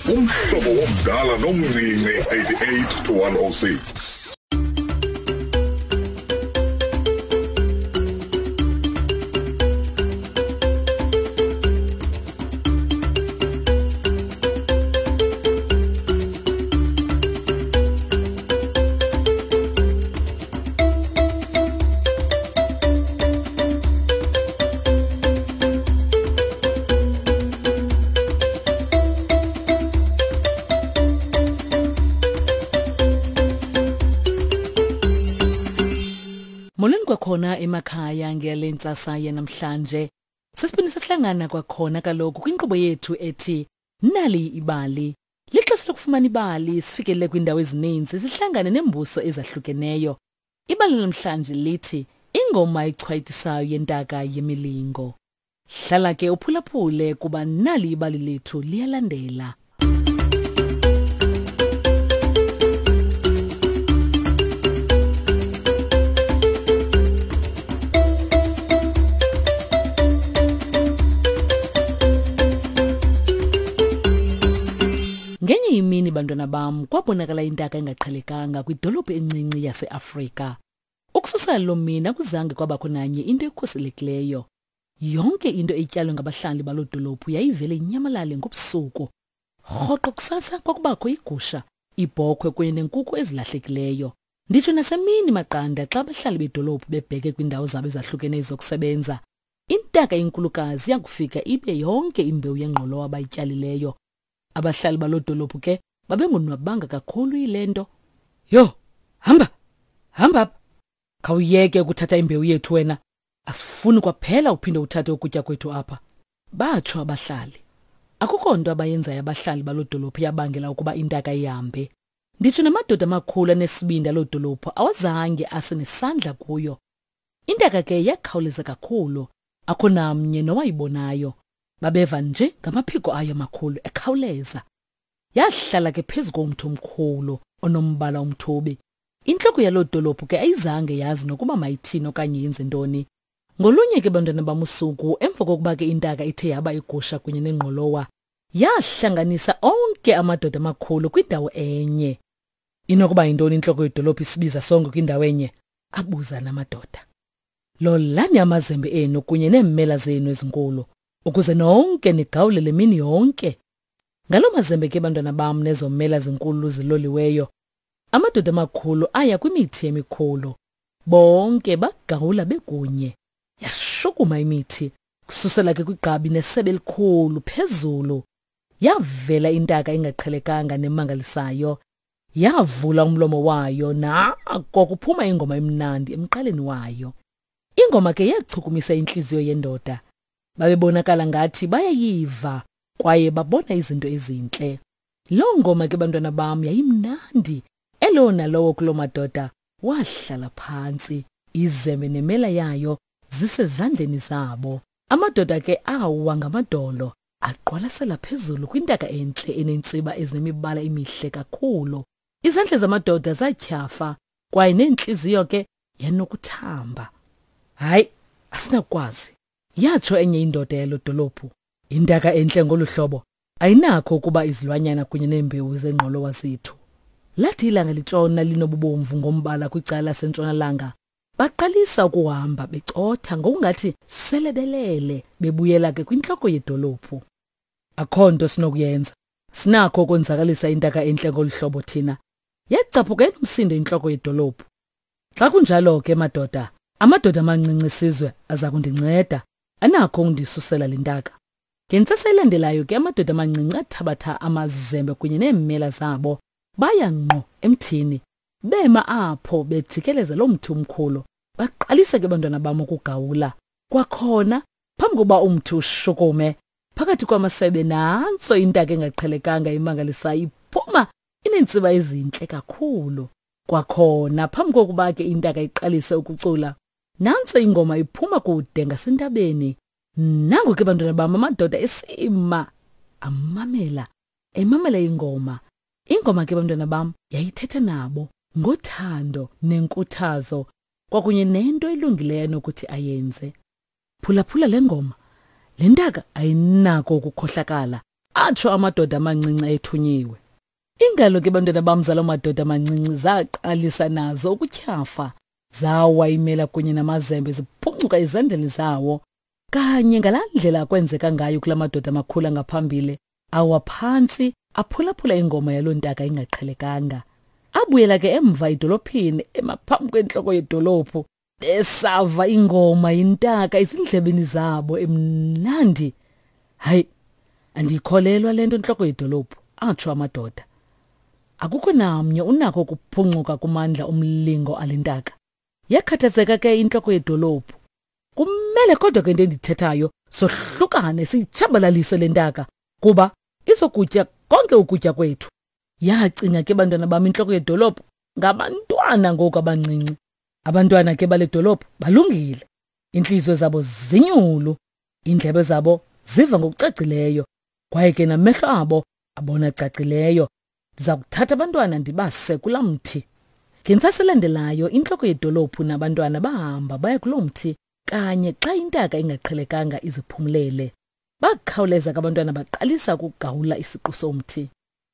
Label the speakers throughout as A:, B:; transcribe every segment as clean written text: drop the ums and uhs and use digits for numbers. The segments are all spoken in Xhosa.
A: Umhlobo womdala nomncinci 88 to 106.
B: Molweni kwakhona emakhaya ngale ntsasa yanamhlanje. Sesiphinde sahlangana kwakhona kaloku kwinkqubo yethu ethi Nali ibali. Lixesha lokufumana ibali sifikelele kwiindawo ezininzi sihlangane neembuso ezahlukeneyo. Ibali namhlanje lithi ingoma echwayitisayo yentaka yemilingo. Hlala ke uphulaphule kuba nali ibali lethu liyalandela. Ngenye imini bantwana bam kwabonakala intaka engaqhelekanga kwidolophu encinci yaseAfrika. Ukususela loo mini akuzange kwabakho nanye into ekhuselekileyo. Yonke into etyalwe ngabahlali baloo dolophu yayivele inyamalale ngobusuku. Rhoqo kusasa kwakubakho igusha, ibhokhwe kunye nenkukhu ezilahlekileyo. Nditsho nasemini maqanda xa abahlali bedolophu bebheke kwiindawo zabo ezahlukeneyo zokusebenza, intaka enkulukazi yakufika ibe yonke imbewu yengqolowa abayityalileyo. Abahlali baloo dolophu ke babengonwabanga kakhulu yile nto. Yho, hamba, hamba apha. Khawuyeke ukuthatha imbewu yethu wena. Asifuni kwaphela uphinde uthathe ukutya kwethu apha. Batsho abahlali. Akukho nto abayenzayo abahlali baloo dolophu yabangela ukuba intaka ihambe. Nditsho namadoda amakhulu anesibindi aloo dolophu awazange ase nesandla kuyo. Intaka ke yakhawuleza kakhulu, akho namnye nowayibonayo. Babeva nje ngamaphiko ayo amakhulu ekhawuleza. Yahlala ke phezu komthi omkhulu onombala omthubi. Intloko yaloo dolophu ke ayizange yazi nokuba mayithini okanye yenze ntoni. Ngolunye ke bantwana bam usuku, emva kokuba ke intaka ithe yaba igusha kunye nengqolowa, yahlanganisa onke amadoda amakhulu kwindawo enye. Inokuba yintoni intloko yedolophu isibiza sonke kwindawo enye? Abuza namadoda. Lolani amazembe enu kunye neemela zenu ezinkulu, ukuze nonke nigawule le mini yonke. Ngaloo mazembe ke bantwana bam nezo mela zinkulu ziloliweyo, amadoda amakhulu aya kwimithi emikhulu. Bonke bagawula bekunye. Yashukuma imithi, kususela ke kwigqabi nesebe elikhulu phezulu. Yavela intaka engaqhelekanga nemangalisayo. Yavula umlomo wayo nako kuphuma ingoma emnandi emqaleni wayo. Ingoma ke yachukumisa intliziyo yendoda. Babebonakala ngathi bayayiva kwaye babona izinto ezintle. Loo ngoma ke bantwana bam yayimnandi. Elowo nalowo kuloo madoda wahlala phantsi, izembe nemela yayo zisezandleni zabo. Amadoda ke awa ngamadolo aqwalasela phezulu kwintaka entle enentsiba ezinemibala emihle kakhulu. Izandla zamadoda zatyhafa kwaye neentliziyo ke yanokuthamba. Hayi, asinakukwazi, yatsho enye indoda yalo dolophu. Intaka entle ngolu hlobo ayinakho ukuba izilwanyana kunye neembewu zengqolowa zethu. Lathi ilanga litshona linobubomvu ngombala kwicala lasentshonalanga, baqalisa ukuhamba becotha ngokungathi sele belele bebuyela ke kwintloko yedolophu. Akho nto sinokuyenza. Sinakho ukonzakalisa intaka entle ngolu hlobo thina. Yacaphuka enomsindo intloko yedolophu. Xa kunjalo ke madoda, amadoda amancinci esizwe aza kundinceda. Anakho ukundisusela le ntaka. Ngentsasa elandelayo ke amadoda amancinci athabatha amazembe kunye neemela zabo baya ngqo emthini. Bema apho bejikeleza loo mthi umkhulu. Baqalisa ke bantwana bam ukugawula. Kwakhona, phambi kokuba umthi ushukume, phakathi kwamasebe nantso intaka engaqhelekanga imangalisayo iphuma ineentsiba ezintle kakhulu. Kwakhona, phambi kokuba ke intaka iqalise ukucula, nantso ingoma iphuma kude ngasentabeni. Nango ke bantwana bam amadoda esima amamela, emamela ingoma. Ingoma ke bantwana bam yayithetha nabo ngothando nenkuthazo kwakunye nento elungileyo anokuthi ayenze. Phulaphula le ngoma. Le ntaka ayinako ukukhohlakala. Atsho amadoda amancinci ayethunyiwe. Iingalo ke bantwana bam zaloo madoda amancinci zaqalisa nazo ukutyhafa. Zawa imela kunye namazembe ziphuncuka ezandleni zawo. Kanye ngalaa ndlela kwenzeka ngayo kula madoda amakhulu angaphambili, awa phantsi aphulaphula ingoma yaloo ntaka ingaqhelekanga. Abuyela ke emva edolophini emaphambi kwentloko yedolophu besava ingoma yintaka ezindlebeni zabo emnandi. Hayi, andiyikholelwa le nto ntloko yedolophu, atsho amadoda. Akukho namnye unako ukuphuncuka kumandla omlingo alentaka. Yakhathazeka ke intloko yedolophu. Kumele kodwa ke into endithethayo sohlukane siyitshabalalise le ntaka kuba izokutya konke ukutya kwethu. Yacinga ke bantwana bam intloko yedolophu ngabantwana ngoku abancinci. Abantwana ke bale dolophu balungile. Iintliziyo zabo zinyulu, iindlebe zabo ziva ngokucacileyo kwaye ke namehlo abo abona cacileyo. Ndiza kuthatha abantwana ndibase kulaa mthi. Ngentsasa elandelayo intloko yedolophu nabantwana bahamba baya kuloo mthi kanye xa intaka ingaqhelekanga iziphumlele. Bakhawuleza ke abantwana baqalisa ukugawula isiqu somthi.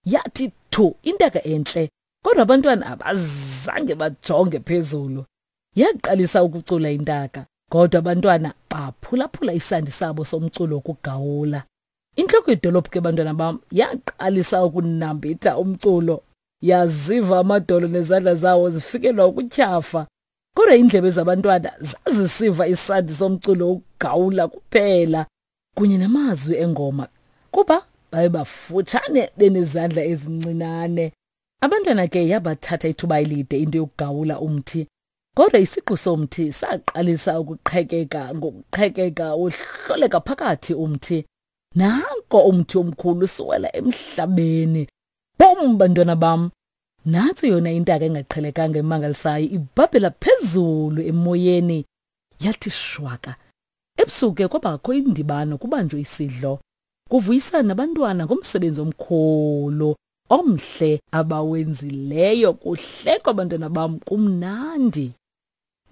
B: Yathi thu intaka entle, kodwa abantwana abazange bajonge phezulu. Yaqalisa ukucula intaka, kodwa abantwana baphulaphula isandi sabo somculo wokugawula. Intloko yedolophu ke bantwana bam yaqalisa ukunambitha umculo. Yaziva amadolo nezandla zawo zifikelwa ukutyhafa. Kodwa iindlebe zabantwana zazisiva isandi somculo wokugawula kuphela kunye namazwi engoma kuba baye bafutshane benezandla ezincinane. Abantwana ke yabathatha ithuba elide into yokugawula umthi. Kodwa isiqu somthi saqalisa ukuqhekeka ngokuqhekeka wohloleka phakathi umthi. Nanko umthi omkhulu siwela emhlabeni. Bum bantwana bam. Nantso yona intaka engaqhelekanga emangalisayo ibhabhela phezulu emoyeni. Yathi shwaka. Ebusuku ke kwabakho indibano kubanjwe isidlo. Kuvuyisana nabantwana ngomsebenzi omkhulu omhle abawenzileyo kuhlekwa abantwana bam kumnandi.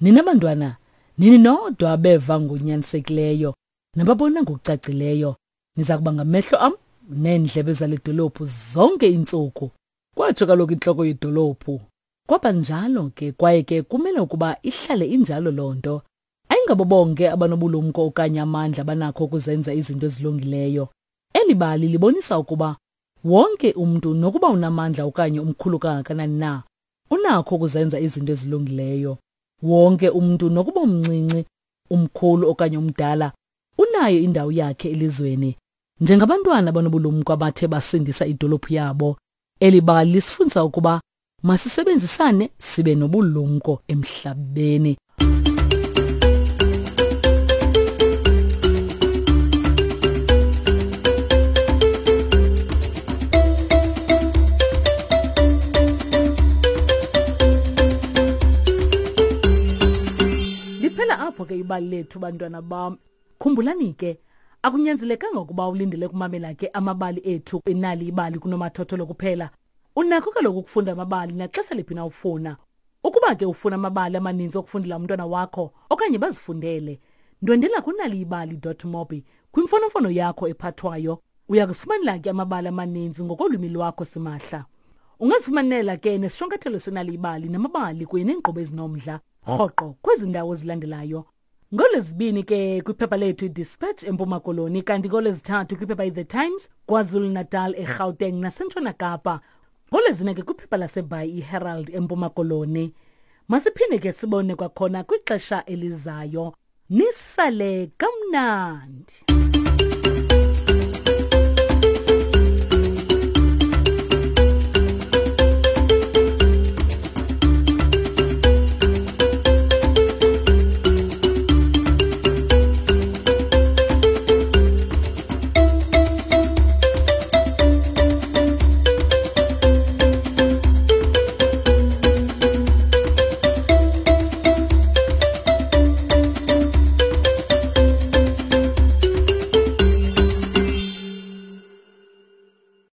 B: Nina bantwana, nini nodwa abeva ngonyanisekileyo nababona ngokucacileyo. Niza kuba ngamehlo am neendlebe zale dolophu zonke iintsuku. Kwatsho kaloku intloko yedolophu. Kwaba njalo ke kwaye ke kumele ukuba ihlale injalo loo nto. Ayingabo bonke abanobulumko okanye amandla abanakho ukuzenza izinto ezilungileyo. Eli bali libonisa ukuba wonke umntu nokuba unamandla okanye umkhulu kangakanani na, unakho ukuzenza izinto ezilungileyo. Wonke umntu nokuba umncinci, umkhulu okanye umdala, unayo indawo yakhe elizweni. Njengabantwana abanobulumko abathe basindisa idolophu yabo, eli bali lisifundisa ukuba masisebenzisane sibe nobulumko emhlabeni. Liphela apho ke ibali lethu bantwana bam. Khumbulani ke akunyanzelekanga ukuba ulindele kumamela ke amabali ethu inali ibali kunomathotholo kuphela. Unakho kaloku ukufunda amabali naxesha liphi na ufuna. Ukuba ke ufuna amabali amaninzi okufundela umntwana wakho okanye bazifundele, ndwendela kunaliyibali.mobi kwimfonomfono yakho ephathwayo. Uya kuzifumanela ke amabali amaninzi ngokolwimi lwakho simahla. Ungazifumanela ke nesishwankathelo senaliyibali namabali kunye neenkqubo ezinomdla rhoqo kwezi ndawo zilandelayo. NgoLwezibini ke kwiphepha lethu iDispatch eMpuma Koloni kanti ngoLwezithathu kwiphepha iThe Times KwaZulu-Natal eGauteng naseNtshona Kapa. NgoLwezine ke kwiphepha laseBhayi iHerald eMpuma Koloni. Masiphinde ke sibone kwakhona kwixesha elizayo. Nisale kamnandi.